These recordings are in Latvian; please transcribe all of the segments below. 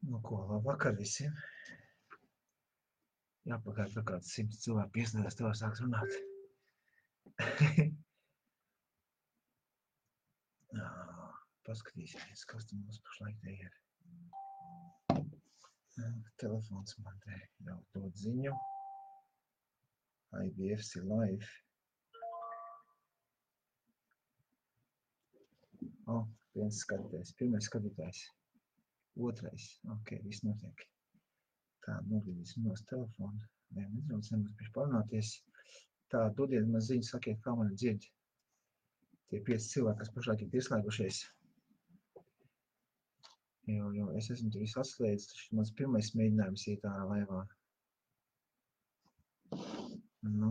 Nu ko, labvakar visiem. Jāpagaid, ka kāds 100 cilvēku piesniedās, tev sāks runāt. Paskatīsimies, kas tu mums pašlaik te ir. Telefons man te jau dod ziņu. IBFC live. Viens skatītājs, pirmais skatītājs. Otrais, ok, viss notiek. Tā, nogriezīsim nos telefonu. Nedaudz nebūs priekš parunāties. Tā, dodiet man ziņu, sakiet, kā mani dzird. Tie 5 cilvēki, kas pašlaik ir pieslēgušies. Jo es esmu tur visu atslēdzis, taču mans pirmais mēģinājums iet ārā laivā. Nu.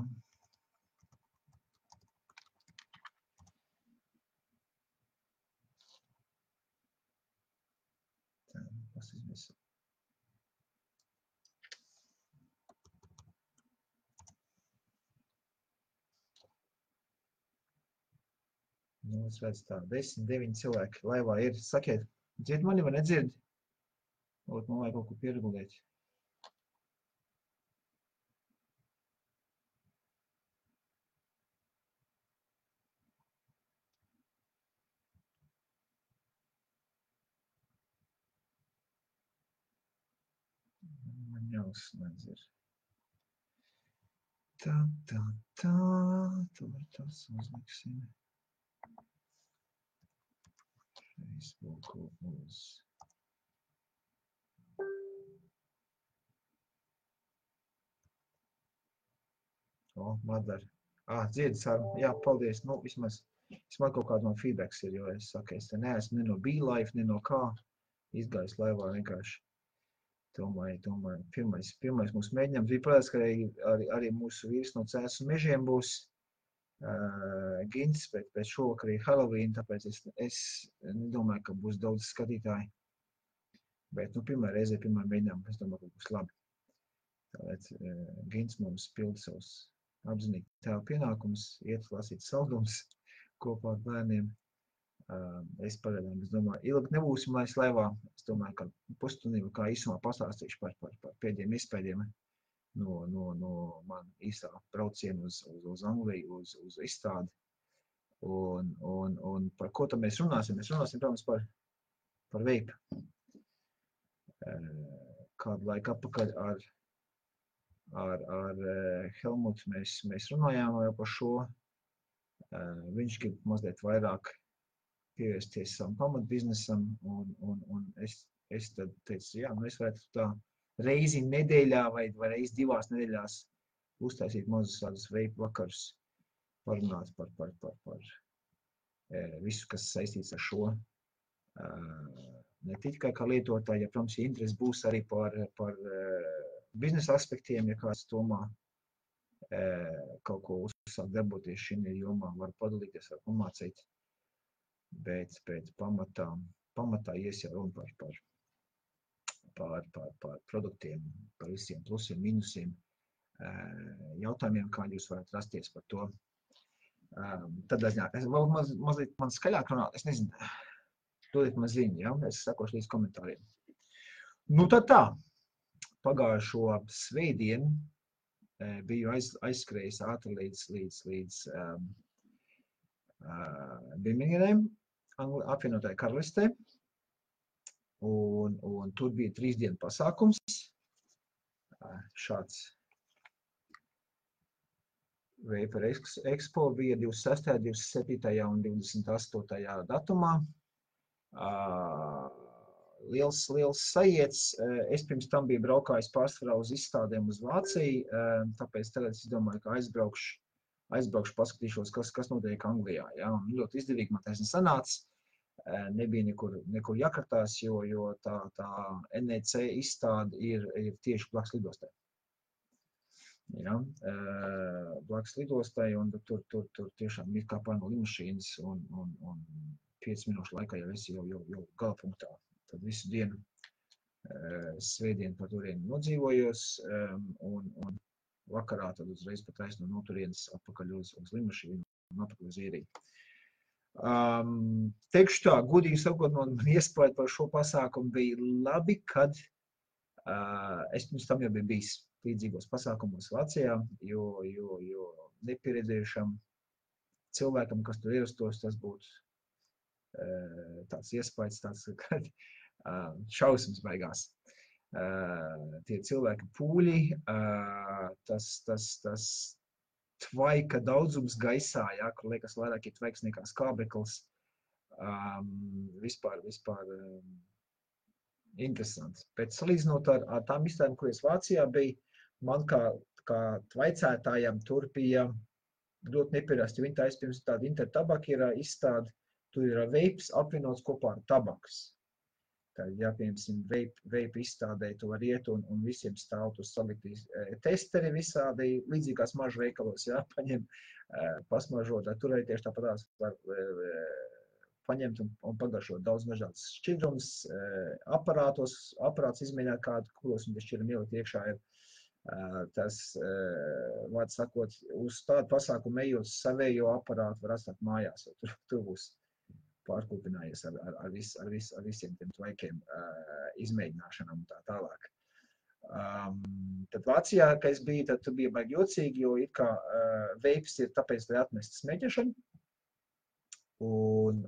Tā, paskatīsimies. Nu, es redzu tā, 10, 9 cilvēki laivā ir. Sakiet, dzird mani vai nedzird? Man vajag kaut ko pieregulēt. Man jāuzslēdz ir. Tā. Tur tas uzliksim. Facebooku uz. Madara. Dzird sarunu. Jā, paldies. Nu, vismaz kaut kāds man feedbacks ir, jo es saku, es te neesmu ne no BeLife, ne no kā. Izgājis laivā vienkārši. Domāju, pirmais mūsu mēģinājums bija, protams, ka arī mūsu vīrs no Cēsu mežiem būs Gins, bet šovakar ir Halloween, tāpēc es nedomāju, ka būs daudz skatītāji. Bet, pirmā reize, pirmā mēģinājuma, es domāju, ka būs labi. Tāpēc Gins mums pilda savus apzinīgi tēva pienākums, iet lasīt saldumus kopā ar bērniem. Es pagaidām, domāju, ilgi nebūsim laiz laivā. Es domāju, ka pusstundu kā īsumā pastāstīšu par pēdējiem iespējiem no man īstā braucienu uz Angliju, uz izstādi. Un par ko tad mēs runāsim? Mēs runāsim, protams, par veipu. Kādu laiku atpakaļ ar Helmutu mēs runājām jau par šo. Viņš grib mazliet vairāk pievērsties savam pamatbiznesam, un es tad teicu, jā, es varētu tā reizi nedēļā vai reizi 2 nedēļās uztaisīt mazus tādus veipu vakarus, parunāt par visu, kas saistīts ar šo. Ne tikai kā lietotāji, ja, protams, interesi būs arī par biznesa aspektiem, ja kāds domā kaut ko uzsākt darboties šī jomā, var padalīties, var pamācīt. Bet pamatā ies jau runa par produktiem, par visiem plusiem, minusiem, jautājumiem, kā jūs varat rasties par to. Tad es vēl mazliet man skaļāk runāt, es nezinu, dodiet man ziņu, ja? Es sakošu līdz komentāriem. Nu tad tā, pagājušo svētdienu biju aizskrējis ātri līdz Birminghamai, apvienotajā karalistē, un tur bija 3 dienu pasākums, šāds Vapor Expo bija 26., 27. un 28. datumā. Liels sajiets, es pirms tam biju braukājis pārsvarā uz izstādēm uz Vāciju, tāpēc tagad es domāju, ka aizbraukšu, paskatīšos, kas notiek Anglijā. Ja? Un ļoti izdevīgi man taisni sanāca. Nebija nekur jākartās, jo tā NEC izstāde ir tieši blakus lidostai. Ja? Blakus lidostai, un tur tiešām ir kā pār no lidmašīnas, un 5 minūšu laikā jau esi jau galapunktā. Tad visu dienu svētdienu par turieni nodzīvojos, un vakarā tad uzreiz pat taisno no turienes atpakaļ uz lidmašīnu un atpakaļ uz Īriju. Teikšu tā, godīgi sakot, man iespēja par šo pasākumu bija labi, kad es pirms tam jau biju bijis līdzīgos pasākumos Vācijā, jo nepieredzējušam cilvēkam, kas tur ierastos, tas būtu tāds iespējas, tāds, kad šausmas beigās. Tie cilvēki pūļi, tas tvaika daudzums gaisā, ja, kur liekas vairāk ir tvaiks nekā skābeklis, vispār interesants. Bet salīdzinot ar tām izstādēm, kuras Vācijā bija, man kā tvaicētājam tur bija ļoti nepierasti. Viņi taisa pirms tāda Intertabaka ir izstāde, tur ir veips apvienots kopā ar tabakas. Tad, ja, piemēram, veipa izstādē tu var iet un visiem stāv tur saliktīs testeri visādi līdzīgās mažu veikalos, ja, paņem pasmažot, tur arī tieši tāpatās var paņemt un pagaršot daudz dažādas šķidrums, aparāts izmēģināt kādu, kuros un šķidrumi ielikt iekšā ir. Tas, vārds sakot, uz tādu pasākumu ejot savējo aparātu var atstāt mājās, jo tur būs pārkūpinājies ar visiem tiem tvaikiem izmēģināšanām un tā tālāk. Tad Vācijā, kad es biju, tad bija baigi jocīgi, jo it kā veips ir tāpēc, lai atmest smēķešanu, un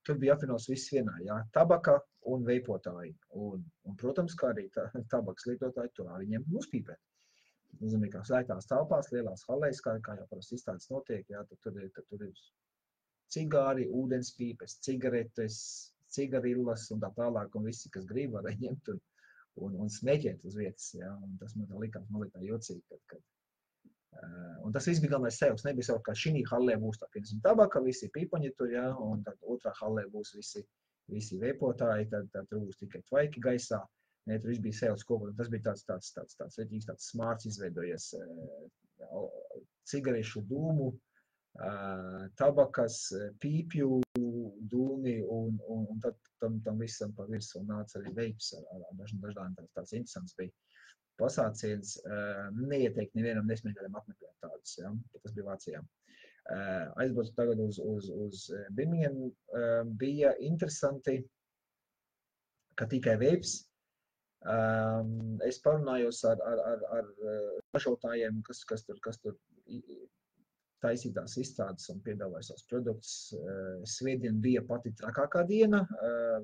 tur bija apvienots viss vienā, jā, tabaka un veipotāji, un protams, kā arī tabakas lietotāji, tur viņiem uzpīpēt. Nozīmē, kā slēgtās telpās, lielās halēs, kā jau parasti izstādes notiek, jā, tad tur ir cigāri, ūdenspīpes, cigaretes, cigarillas un tā tālāk, un visi, kas grib, var ņemt un smēķēt uz vietas, jā, un tas man tā likās mazliet tā jocīgi, kad un tas viss bija galvenais sevis, nebija sev, ka šī hallē būs tā, piemēram, tabaka, visi pīpaņi tur, jā, un tad otrā hallē būs visi veipotāji, tad tur būs tikai tvaiki gaisā, ne, tur viss bija sevis kopā, un tas bija tāds reģīgs, tāds smārts izveidojies, cigarešu dūmu, tabakas, pīpju dūmi, un tad tam visam pa virsmu nāca arī veips ar dažādiem tāds interesants bija. Pasāciens neieteikt nevienam nesmēģinājumam apmeklēt tādus, ja? Tas bija Vācijā. Aizbraucu tagad uz Birmingham, bija interesanti, ka tikai veips. Es parunājos ar ražotājiem, kas tur taisītās izstādes un piedāvāja savus produktus. Svētdien bija pati trakākā diena,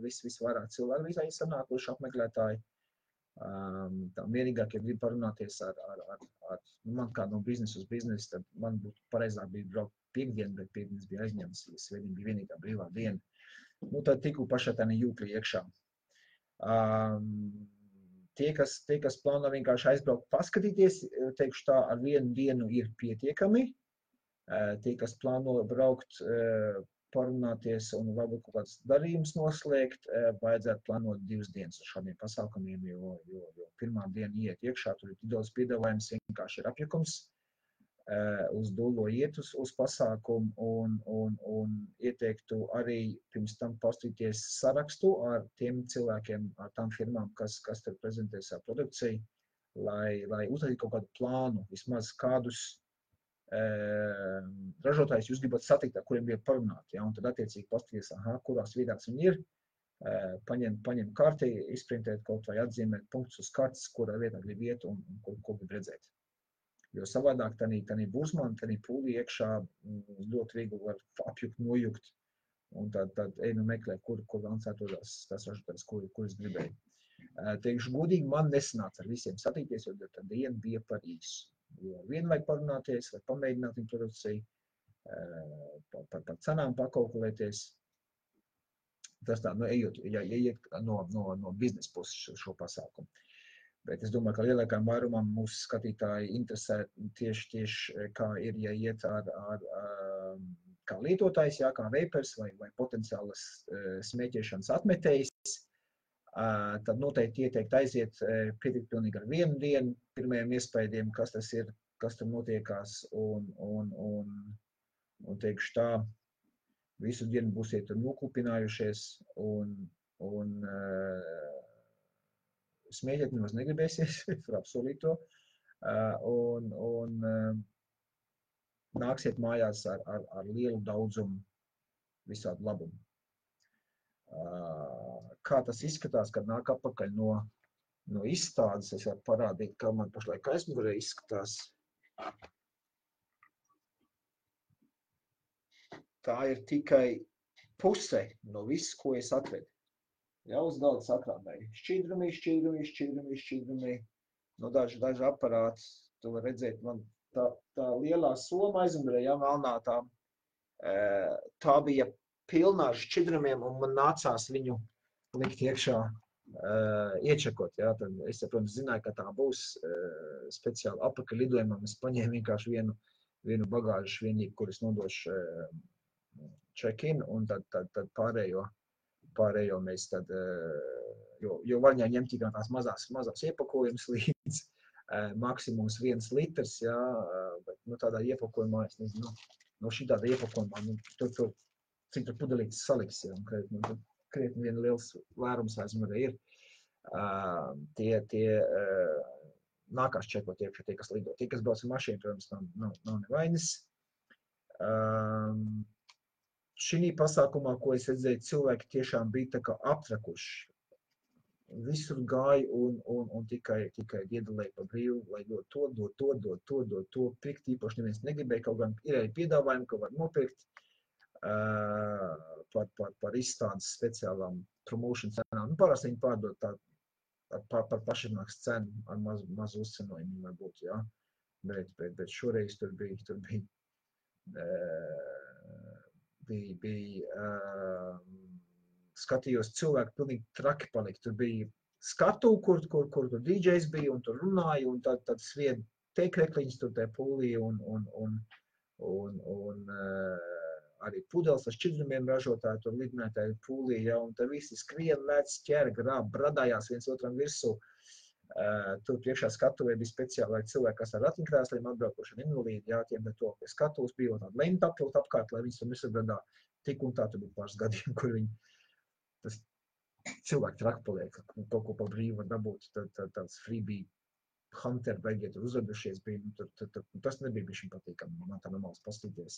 visvairāk cilvēku visai sanākuši apmeklētāji. Tā vienīgāk, ja gribu parunāties ar man kā no biznesa uz biznesu, tad man būtu pareizāk bija braukt piekdien, bet piekdienas bija aizņemts, ja svētdien bija vienīgā brīvā diena. Nu, tad tiku pašā tā jūklī iekšā. Tie, kas plāno vienkārši aizbraukt paskatīties, teikšu tā, ar vienu dienu ir pietiekami. Tie, kas plāno braukt, parunāties un varbūt kaut kāds darījums noslēgt, vajadzētu plānot 2 dienas ar šādiem pasākumiem, jo pirmā diena iet iekšā, tur ir daudz piedāvājums, vienkārši ir apjukums, uz dullo iet uz pasākumu un ieteiktu arī pirms tam pastīties sarakstu ar tiem cilvēkiem, ar tām firmām, kas tur prezentē savu produkciju, lai uztaisītu kaut kādu plānu, vismaz kādus ražotājus jūs gribat satikt, ar kuriem gribat parunāt, ja, un tad attiecīgi pastīties, kurās vietās viņi ir, paņem karti, izprintēt kaut vai atzīmēt punktus uz kartes, kurā vietā grib iet un ko grib redzēt. Jo savādāk tanī bursmani, tanī pūlī iekšā ļoti viegli var apjukt, nojukt, un tad nu meklē, kur lancētos tās ražotājs, kuras gribēju. Teikšu godīgi, man nesanāca ar visiem satīties, jo tā diena bija par īsu. Jo vien vajag parunāties, vai pamēģināt viņu produkciju, par cenām pakalkulēties. Tas tā, ejot no biznesa puses šo pasākumu. Bet es domāju, ka lielākajam vairumam mūsu skatītāji interesē tieši kā ir, ja iet kā lietotājs, kā veipers vai potenciālas smēķēšanas atmetējs. Tad noteikti ieteikt aiziet pietikt pilnīgi ar vienu dienu, pirmajiem iespējiem, kas tas ir, kas tur notiekās, un teikšu tā, visu dienu būsiet nokupinājušies, un smēķēt nemaz negribēsies, var apsolīt to, nāksiet mājās ar lielu daudzumu visādu labumu. Kā tas izskatās, kad nāk atpakaļ no izstādes, es varu parādīt, kā man pašlaik aizmugurē izskatās. Tā ir tikai puse no viss, ko es atvedu. Ja, uz galda sakrāmēju. Šķidrumī. No daži aparāti, tu var redzēt, man tā lielā soma aizmugurē, ja, melnā tā bija pilnā ar šķidrumiem, un man nācās viņu likt iekšā, iečekot. Ja. Tad es, protams, zināju, ka tā būs speciāli apakaļ lidojumam. Es paņēmu vienkārši vienu bagāžu vienību, kuras nodošu check-in, un tad pārējo mēs tad, jo var ņemt tikai tās mazās iepakojumus līdz maksimums 1 litrs, ja, bet tādā iepakojumā, es nezinu, no šī tāda iepakojumā, tur cik tur pudelītes saliks, ja, un krietni vien liels vērums aizmugurē ir. Tie nākās čekot iekšā tie, kas lido. Tie, kas brauc ar mašīnu, protams, nav nevainas. Šī pasākumā, ko es redzēju, cilvēki tiešām bija tā kā aptrakuši. Visur gāja un tikai iedalēja pa brīvu, lai dod to, pirkt īpaši neviens negribēja, kaut gan ir arī piedāvājumi, ka var nopirkt par izstādes speciālām promotion cenām. Parasti viņi pārdod par pašināks cenu ar mazu uzcenojumu varbūt, jā. Bet šoreiz tur bija skatījos cilvēki pilnīgi traki palika. Tur bija skatu, kur tur DJs bija un tur runāja, un tad svien teikrekliņas tur tajā pūlī un arī pudeles ar šķidrumiem ražotāji tur lidinātāji pūlī, ja, un tad visi skrien, lēc, ķer, grāb, bradājās viens otram virsū. Tur priekšā skatuvē bija speciāli cilvēki, kas ar ratiņkrēsliem atbraukuši ar invalīdi, jā, tiem to pie skatuves bija tāda lenta apvilkt apkārt, lai viņas tur nesabradā. Tik un tā tur bija pāris gadiem, kur tas cilvēki traki paliek, kaut ko pa brīvu var dabūt, tāds freebie hunter beigie tur uzvedušies bija, tas nebija bišķiņ patīkami, man tā normāls pastīties.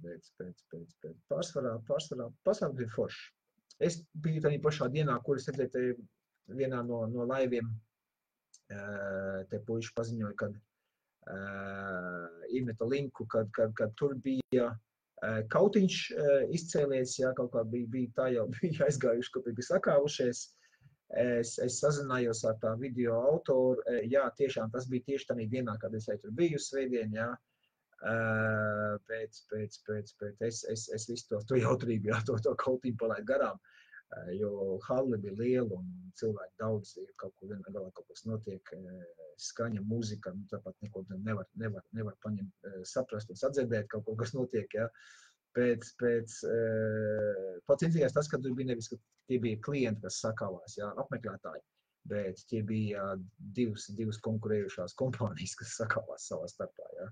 Bet pārsvarā bija forši. Es biju tādā pašā dienā, kur es redzēju vienā no laiviem, te puiši paziņoja, kad iemeta linku, kad tur bija kautiņš izcēlies, jā, kaut kā bija tā jau bija aizgājuši, kaut bija sakāvušies. Es sazinājos ar tā video autoru, jā, tiešām tas bija tieši tādā dienā, kad es tur biju svētdien, jā. Bet es visu to jautrību, jā, to kautiņu palaidu garām. Jo halle bija liela un cilvēki daudz, kaut ko vienā galā kaut kas notiek, skaņa, mūzika, tāpat neko nevar paņemt, saprast un sadzirdēt kaut ko, kas notiek, ja. Pats interesīgais tas, ka tur bija nevis, ka tie bija klienti, kas sakāvās, ja, apmeklētāji, bet tie bija divas konkurējušās kompānijas, kas sakāvās savā starpā, ja.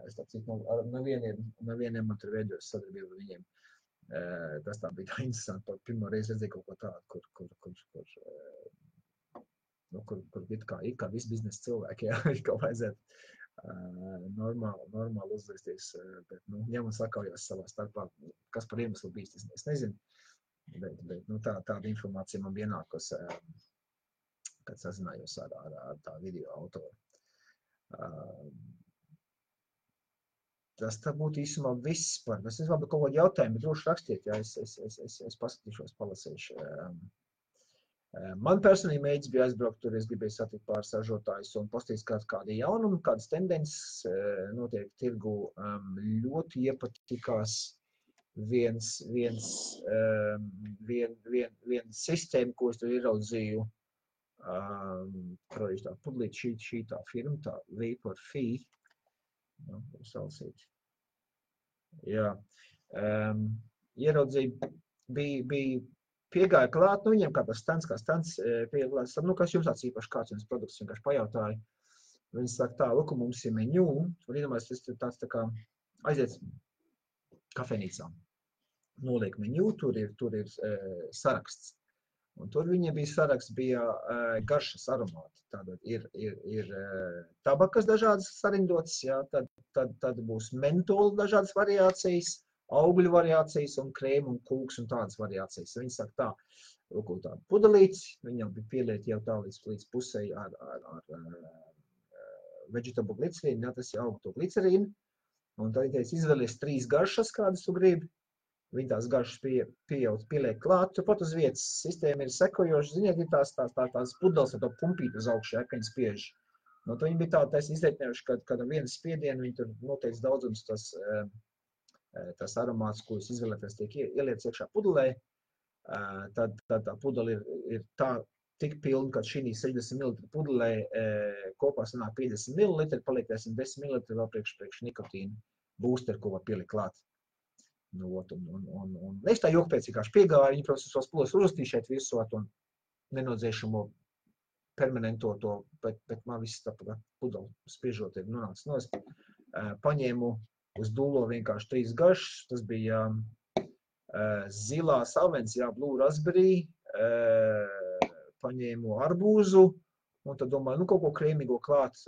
Es tā cik, nevieniem man tur veidojos sadarbību ar viņiem. Tas tā bija tā interesanti, pirmo reizi redzēju kaut ko tādu, kur kā visi biznesa cilvēki, jā, kā vajadzētu normāli uzvesties, bet, ņem un sakaujās savā starpā, kas par iemeslu bijis, es nezinu, bet tāda informācija man ienākos, kad sazinājos ar tā video autoru. Tas tā būtu īsumā viss par. Es nezinu, kaut kādu jautājumu, bet droši rakstiet, ja es paskatīšos, palasīšu. Man personīgi mēģis bija aizbraukt tur, es gribēju satikt pāris ražotājus un pastīties kādi jaunumi, kādas tendences notiek tirgu. Ļoti iepatikās viena sistēma, ko es tur ieraudzīju. Tā pudlīt šī tā firma, tā Vapor-Fi. Salasīt. Jā. Ieraudzīja, bija piegāja klāt, viņiem kā tas stands, piegāja klāt, kas jums tāds īpaši kāds jums produkts, vienkārši pajautāja. Viņi saka tā, lūk, mums ir menu, un iedomājas, tas tāds tā kā aiziet kafejnīcā. Noliek menu, tur ir saraksts. Un tur viņiem bija saraksts, bija garšas aromāti. Tātad ir tabakas dažādas sarindotas, jā, tad tad būs mentola dažādas variācijas, augļu variācijas un krēmu un kūks un tādas variācijas. Viņi saka tā, lūk, tādu pudelīti, viņam bija pieliet jau tā līdz pusē ar vegetable glicerīnu, ja, tas ir augto glicerīnu, un tad viņi teica, izvēlies 3 garšas, kādas tu gribi. Viņi tās garšas pieliek klāt, turpat uz vietas sistēma ir sekojoša. Ziniet, ir tās pudeles ar to pumpīti uz augšu, ja, ka viņi spiež. Nu, viņi bija tā izreikinājuši, ka ar vienu spiedienu viņi tur noteikts daudzums tas aromāts, ko jūs izvēlēties, tiek ieliec iekšā pudelē. Tad tā pudele ir tā tik pilna, ka šī 60 ml pudelē kopā sanāk 50 ml, paliek 10 ml vēl priekš nikotīna booster, ko var pielikt klāt. Nu, un es tā jokpēc vienkārši piegāju, viņi, protams, tos pudeles uzrakstīju šeit visu to nenodzēšamo permanento to, bet man viss tā pudeli spiežot ir nonācis nost. Paņēmu uz dūlo vienkārši 3 garšas, tas bija zilās avens, jā, blue raspberry, paņēmu arbūzu, un tad domāju, nu kaut ko krēmīgo klāt,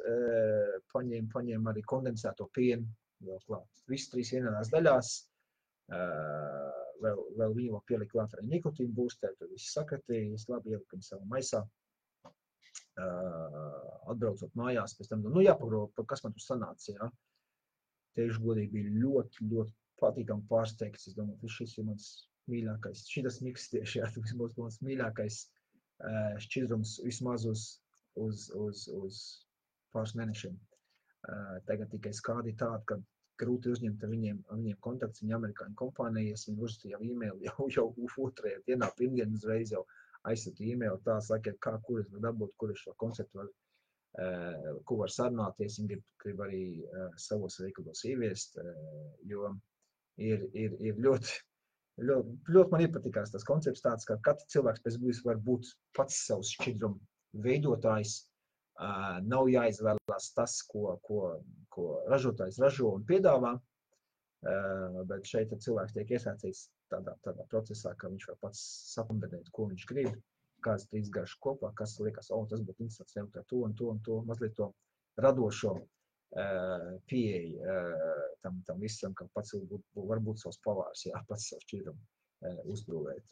paņēmu arī kondensēto pienu vēl klāt. Viss 3 vienādās daļās, vēl viņu pielikt klāt arī nikotīnu boosteri, tad viss sakatīja, es labi ieliku viņu savā maisā. Atbraucot mājās, pēc tam, nu jāpagroba, kas man tur sanāca, jā. Teikšu godīgi, bija ļoti, ļoti patīkami pārsteigts. Es domāju, šis ir mans mīļākais, šitas miks tieši, jā, tas būs mans mīļākais šķidrums vismaz uz pāris mēnešiem. Tagad tikai skādi tāda, ka grūti uzņemt ar viņiem kontakts, viņa amerikāņu kompānijas, viņi uzrakstīja e-maili jau 2. dienā, pirmdien uzreiz jau aizsūtīja e-maili, tā sakiet, kur es varu dabūt, kur es šo konceptu varu, ko var sarunāties, viņi grib arī savos veikalos ieviest, jo ir ļoti man iepatikās tas koncepts tāds, ka katrs cilvēks pēc būtības var būt pats savs šķidrumu veidotājs, nav jāizvēlās tas, ko ražotājs ražo un piedāvā, bet šeit cilvēks tiek iesaistīts tādā procesā, ka viņš var pats sakombinēt, ko viņš grib, kādas 3 garšas kopā, kas liekas, tas būtu interesants, jautāt to un to, mazliet to radošo pieeja tam visam, ka pats var būt savs pavārs, jā, pats savu šķidrumu uzbūvēt.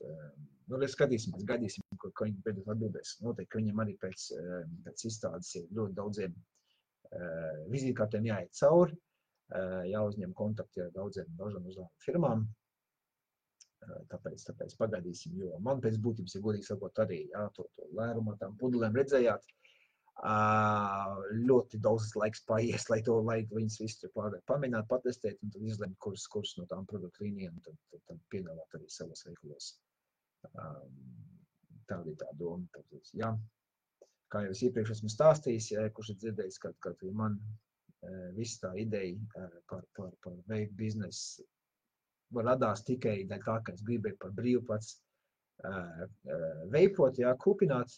Nu, skatīsimies, gaidīsim, ko viņi beidzot atbildēs. Noteikti, ka viņam arī pēc izstādes ir ļoti daudziem vizītkartēm jāiet cauri, jāuzņem kontakti ar daudzām firmām. Tāpēc pagaidīsim, jo man pēc būtības, ja godīgi sakot, arī to lērumu tām pudelēm redzējāt, ļoti daudz laiks paies, lai viņas visu pamēģināt, patestēt un tad izlemt, kuras no tām produktu līnijām tad piedāvāt arī savos veikalos. Tāda ir tā doma. Jā. Kā jau es iepriekš esmu stāstījis, kurš ir dzirdējis, ka man viss tā ideja par veikt biznesu radās tikai dēļ tā, ka es gribēju par brīvu pats veipot, jā, kūpināt,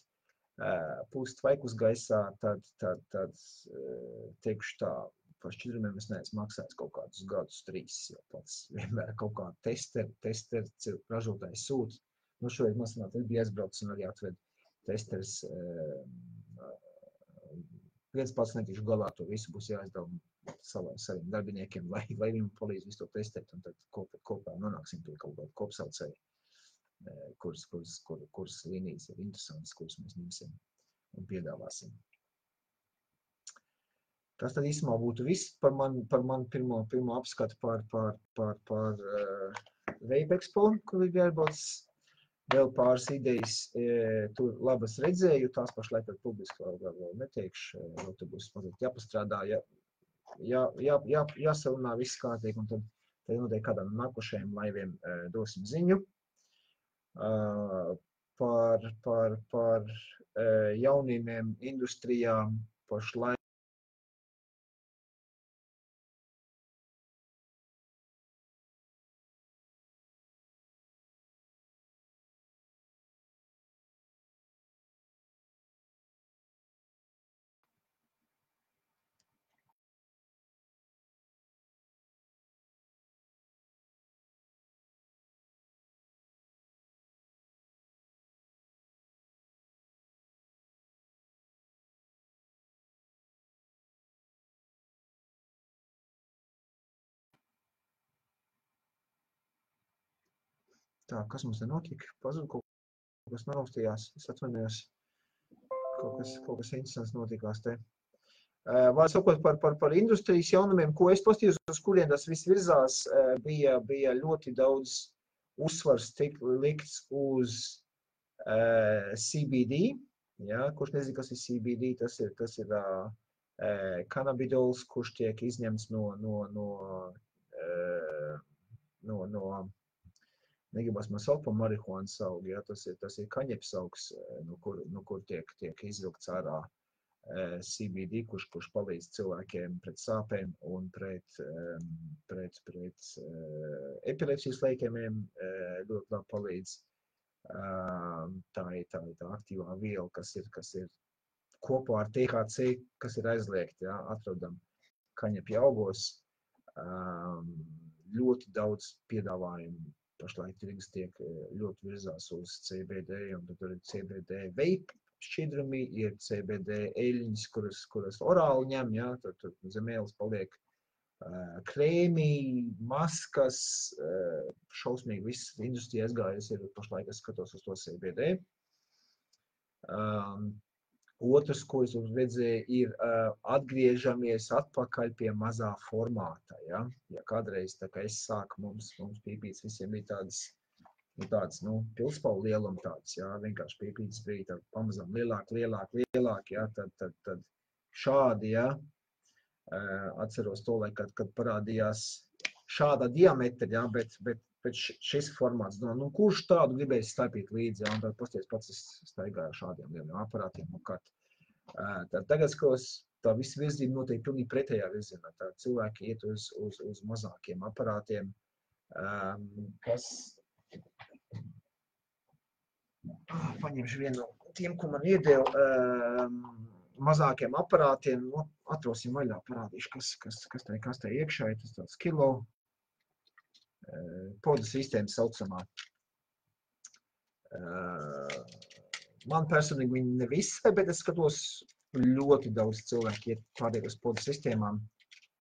pūst tvaikus gaisā, tad teikšu tā, par šķidrumiem es neesmu maksājis kaut kādus gadus 3, jo pats vienmēr kaut kā testeri ražotājs sūt. Nu, šoreiz man sanāk, es biju aizbraucis un arī atved testeris. Viens pats netikšu galā, to visu būs jāizdala saviem darbiniekiem, lai viņam palīdz visu to testēt, un tad kopā nonāksim pie kaut kāda kopsaucēja, kuras līnijas ir interesantas, kuras mēs ņemsim un piedāvāsim. Tas tad īsumā būtu viss par man pirmo apskatu par Vape Expo, kur ir jāiebrauc. Vēl pāris idejas, tur labas redzēju, tās pašlaik ar publiski vēl neteikšu, vēl tur būs mazliet jāpastrādā, jāsarunā viss kārtīgi, un tad noteikti kādām nākošajiem laiviem dosim ziņu. Par jaunīmiem industrijām pašlaik Tā, kas mums te notika? Pazud kaut kas naraustījās. Es atvainojos. Kaut kas interesants notikās te. Vēl sakot par industrijas jaunumiem, ko es pastījos, uz kuriem tas viss virzās, bija ļoti daudz uzsvars likts uz CBD. Ja, kurš nezina, kas ir CBD, tas ir kannabidols, kurš tiek izņemts no negribas man saukt par marihuānas augu, ja, tas ir kaņeps augs, no kur tiek izvilkts ārā CBD, kurš palīdz cilvēkiem pret sāpēm un pret epilepsijas leikemiem ļoti labi palīdz. Tā ir aktīvā viela, kas ir kopā ar THC, kas ir aizliegta, ja, atrodam kaņepja augos. Ļoti daudz piedāvājumu pašlaik tirgus tiek ļoti virzās uz CBD, un tad ir CBD vape šķidrumi, ir CBD eļļas, kuras orāli ņem, ja, tad zem ēles paliek krēmi, maskas, šausmīgi viss industrija aizgājas ir pašlaik, es skatos uz to CBD. Otrs, ko es redzēju, ir atgriežamies atpakaļ pie mazā formāta. Ja, kādreiz, tā kā es sāku, mums pīpītes visiem bija tādas pilspaulu lieluma tāds, jā, vienkārši pīpītes bija tā pamazām lielāk, jā, tad šādi, jā, atceros to, kad parādījās šāda diametra, jā, bet šis formāts, kurš tādu gribēs staipīt līdzi, jā, un tad pasties pats es staigāju šādiem lieliem aparātiem apkārt. Tagad skatos, tā visa virzība notiek pilnīgi pretējā virzienā, tā cilvēki iet uz mazākiem aparātiem, kas paņemšu vienu no tiem, ko man iedeva mazākiem aparātiem, atrosim vaļā, parādīšu, kas tā iekšā ir, tas tāds kilo podu sistēma saucamā. Man personīgi viņi ne visai, bet es skatos ļoti daudz cilvēki iet pārējos podu sistēmām.